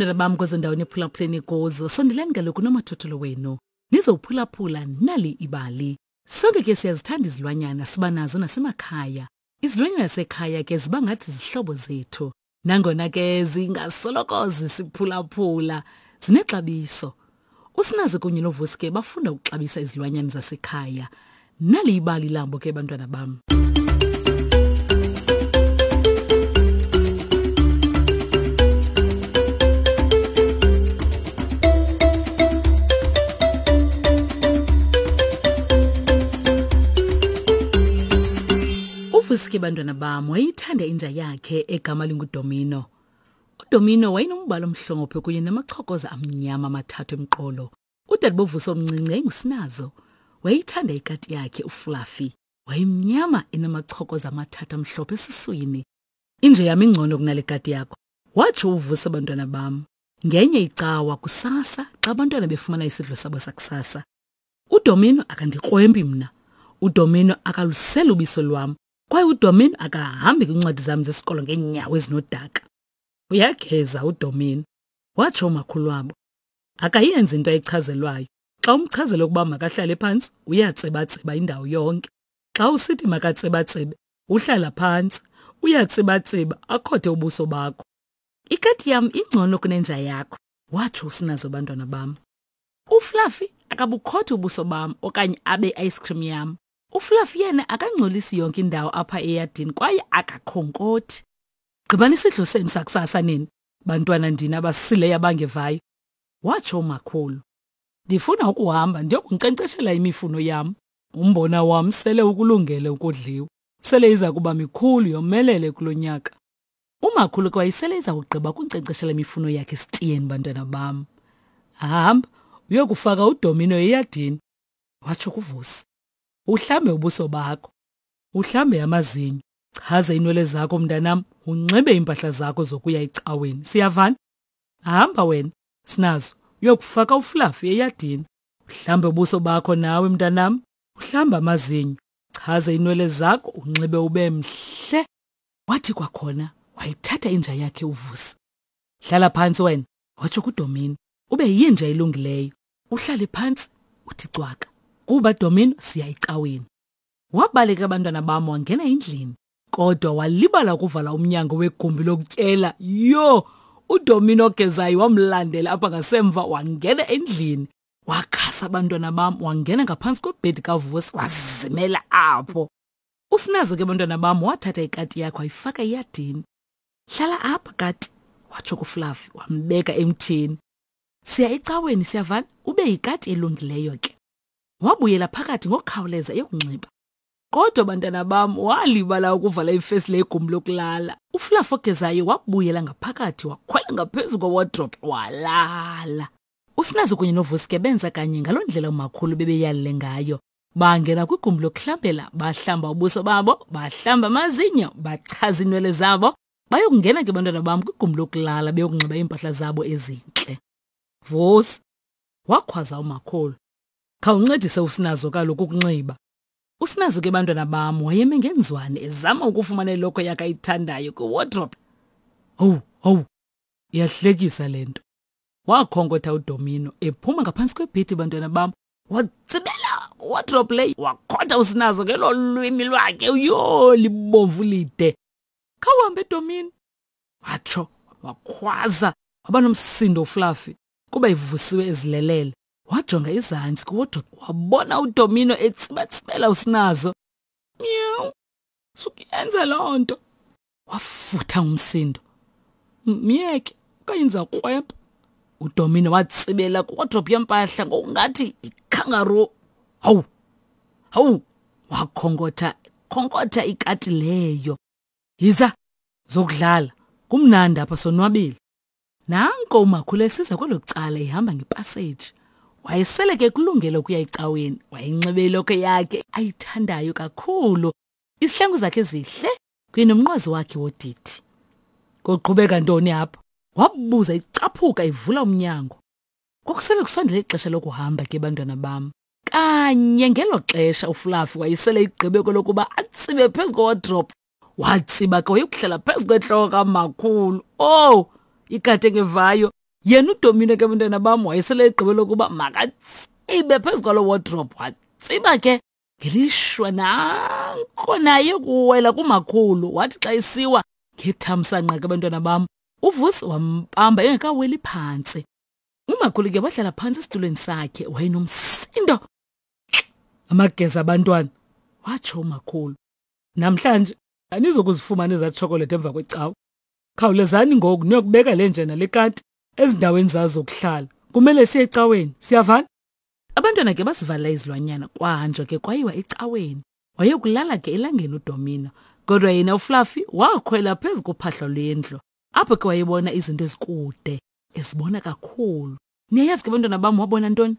bantwana bam kwezo ndawo niphulaphuleni kuzo, sondelani kaloku nomathotholo wenu. Nizowuphulaphula nali ibali. Sonke ke siyazithanda izilwanyana, siba nazo nasemakhaya. Izilwanyana zasekhaya ke ziba ngathi zihlobo zethu. Nangona ke zingasoloko zisiphulaphula, zinexabiso. Usinazo kunye noVusi ke bafunda ukuxabisa izilwanyana zasekhaya. Nali ibali labo ke bantwana bam. UVusi ke bantwana bam wayithanda inja yakhe egama linguDomino. UDomino wayenombala omhlophe kunye namachokoza amnyama amathathu emqolo. Udade boVusi omncinci yayingusinazo. Wayeyithanda ikati yakhe uFluffy. Wayemnyama enamachokoza amathathu amhlophe esiswini. Inja yam ingcono kunale kati yakho, watsho uVusi abantwana bam. Ngenye icawa kusasa xa abantwana befumana isidlo sabo sakusasa. UDomino akandikrwempi mna. UDomino akaluseli ubiso lwam kwaye uDomino akahambi kwiincwadi zam zesikolo ngeenyawo ezinodaka. Uyageza uDomino, watsho umakhulu wabo. Akayenzi into ayichazelwayo. Xa umchazela ukuba makahlale phantsi, uyatsibatsiba indawo yonke. Xa usithi makatsibatsibe, uhlala phantsi, uyatsibatsiba akhothe ubuso bakho. Ikati yam ingcono kunenja yakho, watsho uSinazo bantwana bam. UFluffy akabukhothi ubuso bam okanye abe ice cream yam. UFluffy yena akangcolisi yonke indawo apha eyadini kwaye akakhonkothi. Gqibani isidlo senu sakusasa nini, bantwana ndini abasileyo abangevayo, watsho umakhulu. Ndifuna ukuhamba ndiyokunkcenkceshela imifuno yam. Umbona wam sele ukulungele ukudliwa. Sele iza kuba mikhulu yomelele kulo nyaka. Umakhulu ke wayesele eza kugqiba ukunkcenkceshela imifuno yakhe esitiyeni, bantwana bam. Hamba uyokufaka udomino eyadini, watsho kuVusi. Uhlambe ubuso bakho, uhlambe amazinyo, chaze iinwele zakho mntanam, unxibe iimpahla zakho zokuya ecaweni. Siyavana? Hamba wena, Sinazo, uyokufaka uFluffy eyadini. Uhlambe ubuso bakho nawe mntanam, uhlambe amazinyo, chaze iinwele zakho, unxibe ube mhle. Wathi kwakhona wayithatha inja yakhe uVusi. Hlala phantsi wena, watsho kuDomino. Ube yinja elungileyo. Uhlale phantsi uthi cwaka. Kuba Domino siya ecaweni. Wabaleka abantwana bam wangena endlini. Kodwa walibala ukuvala umnyango wegumbi lokutyela. Yho! UDomino ogezayo wamlandela apha ngasemva wangena endlini. Wakhasa abantwana bam wangena ngaphantsi kwebhedi kaVusi wazimela apho. Usinazo ke bantwana bam wathatha ikati yakhe wayifaka eyadini. Hlala apha kati, watsho kuFluffy wambeka emthini. Siya ecaweni siyavana, ube yikati elungileyo ke. Wabuyela phakathi ngokukhawuleza eyokunxiba. Kodwa bantwana bam walibala ukuvala ifesile yegumbi lokulala. UFluffy ogezayo wabuyela ngaphakathi wakhwela ngaphezu kwewardrobe walala. Usinazo kunye noVusi ke benza kanye ngaloo ndlela umakhulu bebeyalele ngayo. Bangena kwigumbi lokuhlambela, bahlamba ubuso babo, bahlamba amazinyo, bachaza iinwele zabo, bayokungena ke bantwana bam kwigumbi lokulala beyokunxiba iimpahla zabo ezintle. Vusi, wakhwaza umakhulu, khawuncedise uSinazo kaloku ukunxiba. USinazo ke bantwana bam wayeme ngenzwane ezama ukufumana ilokhwe yakhe ayithandayo kwiwardrobe. Owu, owu, iyahlekisa le nto. Wakhonkotha uDomino ephuma ngaphantsi kwebhedi bantwana bam watsibela wardrobe leyo wakhotha usinazo ngelo lwimi lwakhe uyoo libomvu lide khawuhambe domini watsho wakhwaza waba nomsindo ufluffy kuba ivusiwe ezilelele wajonga izantsi kuwardrobe wabona udomino etsibatsibela usinazo miyawu sukuyenza loo nto wafutha ngumsindo myeke okanye ndiza krwebha udomino watsibela kwiwodrophu yempahla ngokungathi ikhangaru hawu hawu wakhonkotha khonkotha ikati leyo yiza zokudlala kumnandi apha sonwabile nanko umakhulu esiza kwelo cala ehamba ngepaseji wayesele ke kulungele ukuya ecaweni wayenxibe ilokho yakhe ayithandayo kakhulu isihlangu zakhe zihle kunye nomnqwazi wakhe wodidi. Kuqhubeka ntoni apha? Wabuza icaphuka ivula umnyango. Kwakusele kusondele ixesha lokuhamba ke bantwana bam. Kanye ngelo xesha uFluffy wayesele igqibe kwelokuba atsibe phezu kowardrobe. Watsiba ke wayokuhlala phezu kwentloko kamakhulu. Oh, ikati engevayo Yena uDomino ke bantwana bam wayesele egqibe lokuba makatsibe phezu kwalo wardrobe watsiba ke ngelishwa nanko naye kuwela kumakhulu wathi xa isiwa ngethamsanqa ke bantwana bam uVusi wambamba engekaweli phantsi. Umakhulu ke wahlala phantsi esitulweni sakhe wayenomsindo. Amageza abantwana, watsho umakhulu. Namhlanje anizokuzifumana ezaa tshokolethi emva kwecawa. Khawulezani ngoku niyokubeka le nje nale kati ezindaweni zazo zokuhlala. Kumele siye ecaweni. Siyavana? Abantwana ke basivala izilwanyana kwahanjwa ke kwayiwa ecaweni. Wayokulala ke elangeni uDomino. Kodwa yena uFluffy wakhwela phezu kophahla lwendlu. Apho ke wayebona izinto ezikude, ezibona kakhulu. Niyayazi ke bantwana bam wabona ntoni?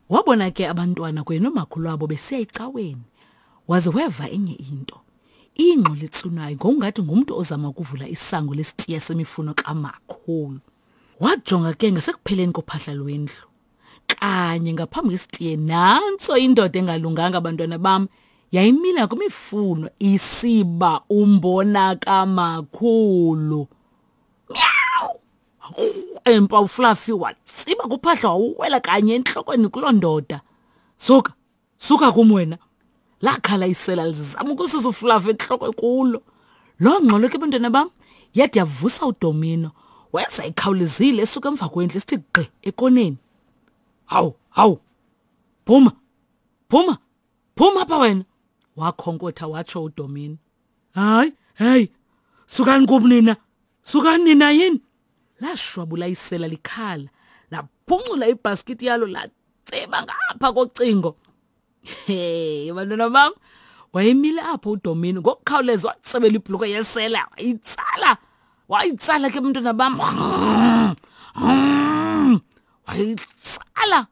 Wabona ke abantwana kunye nomakhulu wabo besiya ecaweni. Waze weva enye into. Ingxolo etsunayo ngokungathi ngumntu ozama ukuvula isango lesitiya semifuno kamakhulu. Wajonga ke ngasekupheleni kophahla lwendlu. Kanye ngaphambi kwesitiye nantso indoda engalunganga bantwana bam yayimila kwimifuno isiba umbona kamakhulu. Meow! Empa uFluffy watsiba kuphahla wawela kanye entlokweni kuloo ndoda. Suka, suka kum wena. Lakhala isela lizama ukususa uFluffy entloko kulo. Loo ngxolo ke bantwana bam yade yavusa uDomino. Weza ekhawulezile esuka emva kwendlu esithi gqi ekoneni. Hawu, hawu. Phuma. Phuma. Phuma apha wena. Wakhonkotha watsho uDomino. Hayi, hey. Sukani kum nina. Sukani nina yini? Lashwabula isela likhala. Laphuncula ibhaskithi yalo latseba ngapha kocingo. Hey, bantwana bam. Wayemile apho uDomino ngokukhawuleza watsebela ibhuluko yesela wayitsala. Wayitsala ke bantwana bam. Wayitsala.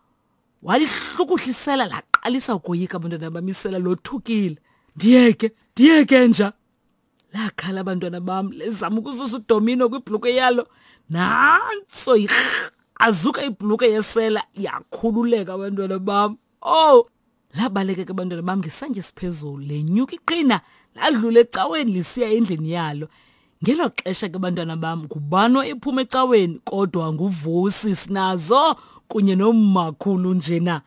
Walihlukuhlisela laqalisa ukoyika abantwana bam isela lothukile. Ndiyeke, ndiyeke nja. Lakhala abantwana bam lezama ukususa uDomino kwibhuluko yalo. Nantso azuka ibhuluko yesela yakhululeka abantwana bam. Oh, labaleka ke abantwana bam ngesantya esiphezulu lenyuka iqhina ladlula ecaweni lisiya endlini yalo. Ngelo xesha ke bantwana bam ngubani ephuma ecaweni kodwa nguVusi sinazo kunye nomakhulu njena.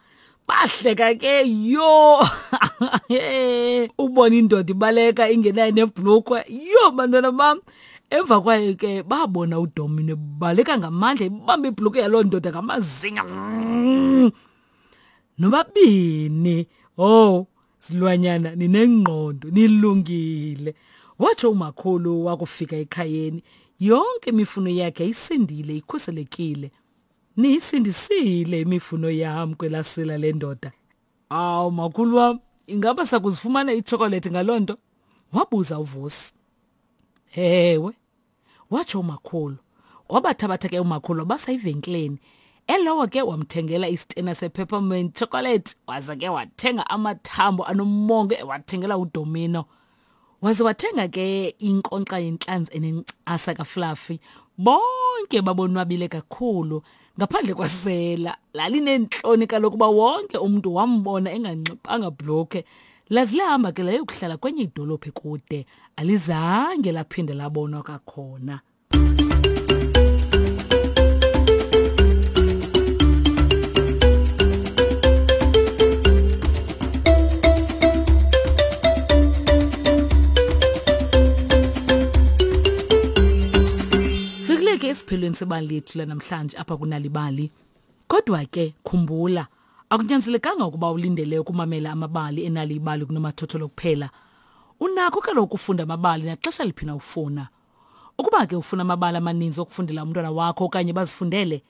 Bahleka ke yho. Ubona indoda ibaleka ingenayo nebhlukwe. Yho bantwana bam. Emva kwayo ke babona uDomino ebaleka ngamandla ibamba ibhlukwe yaloo ndoda ngamazinga. Nobabini. Oh, silwanyana ninengqondo nilungile. Watsho umakhulu wakufika ekhayeni. Yonke imifuno yakhe isindile ikhuselekile. Niyisindisile imifuno yam kwelasila lendoda. Awu makhulu wam, ingaba sakuzifumana iitshokolethi ngaloo nto? Wabuza uVusi. Ewe, watsho umakhulu. Wabathabatha ke umakhulu wabasa evenkileni. Elowo ke wamthengela isitena sepeppermint chocolate waza ke wathenga amathambo anomongo ewathengela uDomino. Waze wathenga ke inkonkxa yentlanzi enencasa kaFluffy. Bonke babonwabile kakhulu ngaphandle kwasela. Lalineentloni kaloku uba wonke umntu wambona enganxibanga bhlokhe. Laze lahamba ke layokuhlala kwenye idolophu ekude. Alizange laphinde labonwa kwakhona. Sikuleke esiphelweni sebali lethu lanamhlanje apha kunalibali. Kodwa ke khumbula, akunyanzelekanga ukuba ulindele ukumamela amabali enalibali kunomathotholo kuphela. Unakho kaloku ukufunda amabali naxesha liphi na ufuna. Ukuba ke ufuna amabali amaninzi okufundela umntwana wakho okanye bazifundele,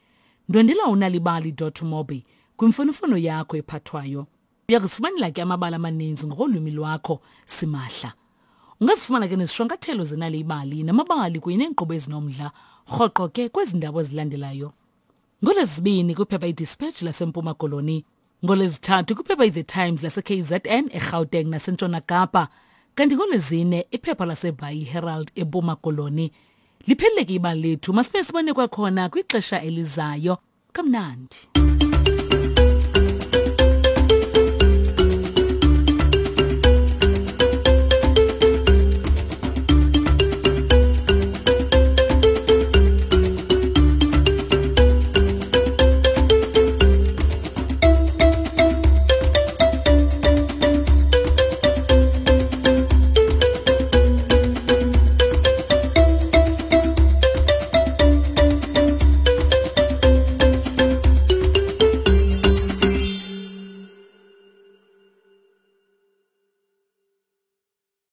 ndwendela unalibali.mobi kwimfonomfono yakho ephathwayo. Uya kuzifumanela ke amabali amaninzi ngokolwimi lwakho simahla. Ungazifumana ke nezishwankathelo zenali ibali namabali kunye neenkqubo ezinomdla rhoqo ke kwezi ndawo ezilandelayo. NgoLwezibini kwiphepha iDispatch laseMpuma Koloni, NgoLwezithathu kwiphepha iThe Times laseKZN, eGauteng naseNtshona Kapa, kanti ngoLwezine iphepha laseBhayi iHerald eMpuma Koloni. Liphelile ke ibali lethu, masibe sibone kwakhona kwixesha elizayo. Kamnandi.